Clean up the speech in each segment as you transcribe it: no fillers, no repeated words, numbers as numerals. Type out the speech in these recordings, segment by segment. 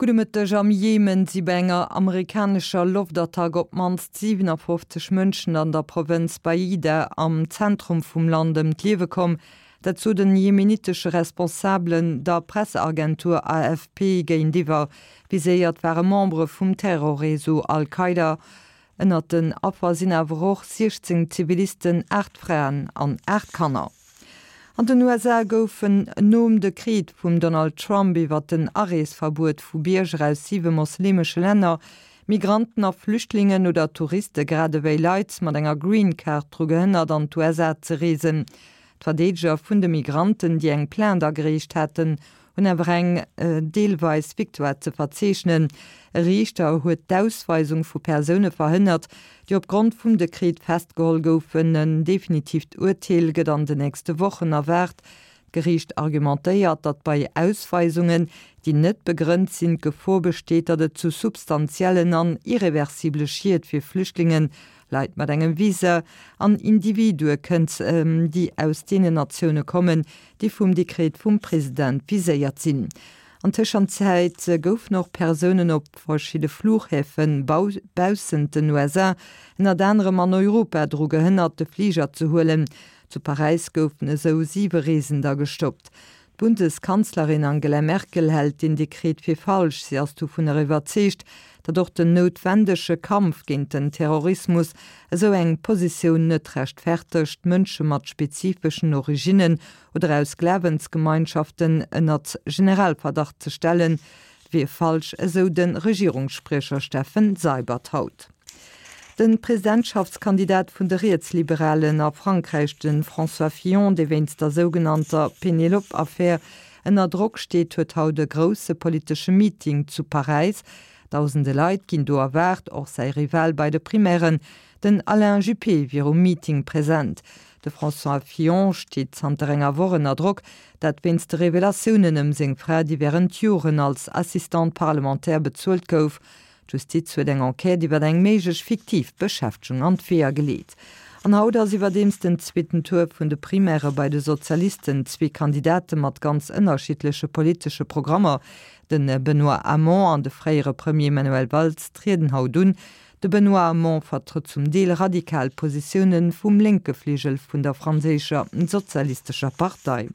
Gudde Mëtteg, Am Jemen si bei enger amerikanescher Loftattack op d'mannst 57 Mënschen an der Provënz Baida am Zentrum vum Land ëm d'Liewe komm. Dat sot en jemenitesche Responsabelen der Presseagentur AFP géintiwwer. Viséiert ware Membere vum Terrorreseau Al-Qaida. Ënnert den Affer sinn awer och 16 Zivilisten, 8 Fraen an 8 Kanner. An den USA goufen nom Dekret vum Donald Trump iwwer den Areesverbuet vu Bierger aus siwe moslemesche Länner, Migranten a Flüchtlingen oder Touriste grad ewéi Leit mat enger Green Card dru gehënnert an d'USA ze reesen. D'Verdeedeger vun de Migranten, déi eng Plainte agereecht haten, hunn awer eng deelweis Victoire ze verzeechnen. E Riichter huet d'Ausweisung vu Persoune verhënnert, déi opgrond vum Dekret festgeholl goufen. En definitiivt Urteel gëtt an de nächste Wochen erwaart. D'Geriicht argumentéiert, datt bei Ausweisungen, déi net begrënnt sinn, d'Gefor besteet, datt et zu substantiellen an irreversible Schied fir Flüchtlingen, Leit mat engem Visa an Individue kënnt, déi aus deenen Natioune kommen, déi vum Dekret vum President viséiert sinn. An Tëschenzäit goufen och Persounen op verschidde Flughäfe baussent den USA, ënnert anerem an Europa, dru gehënnert, de Fliger ze huelen. Zu Paräis goufen esou siwe Reesender gestoppt. D'Bundeskanzlerin Angela Merkel hält deen Dekret fir falsch. Si ass dovunner iwwerzeegt, datt och den noutwendege Kampf géint den Terrorismus esou eng Positioun net rechtfertegt, Mënsche mat spezifeschen Originnen oder aus Glawensgemeinschaften ënnert Generalverdacht ze stellen, wier falsch, esou de Regierungsspriecher Steffen Seibert haut. De Presidentschaftskandidat vun de Rietsliberalen a Frankräich, de François Fillon, dee wéinst der sougenannter Penelope-Affär ënner Drock steet, huet haut e grousse politesche Meeting zu Paräis. Dausende Leit ginn do erwaart, och säi Rival bei de Primairen, den Alain Juppé, wier um Meeting present. De François Fillon steet zanter enger Woch ënner Drock, dat wéinst de Revelatiounen ëm seng Fra, déi wärend Joren als Assistante parlementaire bezuelt gouf. D'Justiz huet eng Enquête iwwer eng méiglech fiktiv Beschäftegung an d'Weeër geleet. An haut ass iwwerdeems den zweeten Tour vun de Primairë bei de Sozialisten. Zwee Kandidate mat ganz ënnerschiddleche politesche Programmer, de Benoît Hamon an de fréiere Premier Manuel Valls, trieden haut un. De Benoît Hamon vertrëtt zum Deel radikal Positioune vum lénke Fligel vun der franséischer sozialistescher Partei.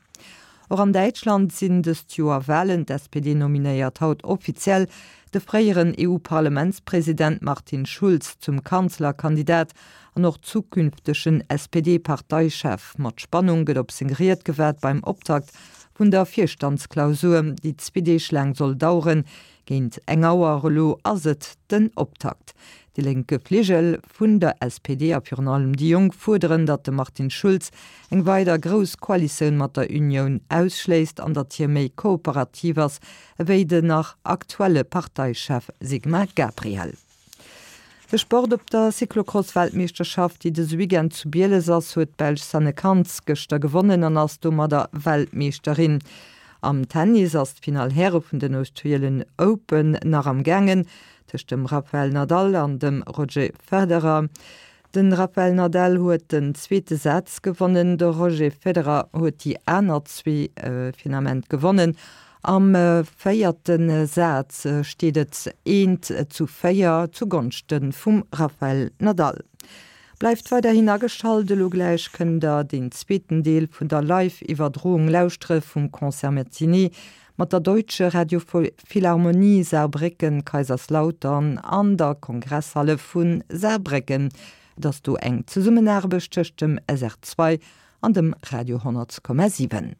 Och an Däitschland sinn dëst Joer Walen. D'SPD nominéiert haut offiziell de fréieren EU-Parlamentspresident Martin Schulz zum Kanzlerkandidat an och zukünftegen SPD-Parteichef. Mat Spannung gëtt op seng Ried gewaart beim Optakt vun der Virstandsklausur, déi zwee Deeg laang soll daueren. Géint eng Auer elo ass et den Optakt. De lénke Fligel vun der SPD a virun allem déi Jonk fuerderen, datt de Martin Schulz eng weider grouss Koalitioun mat der Unioun ausschléisst an datt hie méi kooperativ ass ewéi den nach aktuelle Parteichef Sigmar Gabriel. De Sport op der Cyclocross-Weltmeeschterschaft, déi dëse Weekend zu Bieles ass, huet d'Belsch Sanne Cant gëschter gewonnen an ass domadder Weltmeeschterin. Am Tennis ass d'Finall Häre vun den Australian Open nach am gaangen tëscht dem Rafael Nadal an dem Roger Federer. De Rafael Nadal huet den zweete Saz gewonnen, de Roger Federer huet déi aner zwee fir den Ament gewonnen. Am véierte Saz steet et 1 zu 4 zu Gonschte vum Rafael Nadal. Bleift weiderhin ageschalt, elo gläich kënnt der deen zweeten Deel vun der Live-Iwwerdroung lauschtere vum Concert Matinée mat der Deutsche Radiophilharmonie Saarbrécken, Kaiserslautern an der Kongresshalle vu Saarbrécken. Et ass do eng Zesummenaarbecht tëscht dem SR2 an dem Radio 10,7.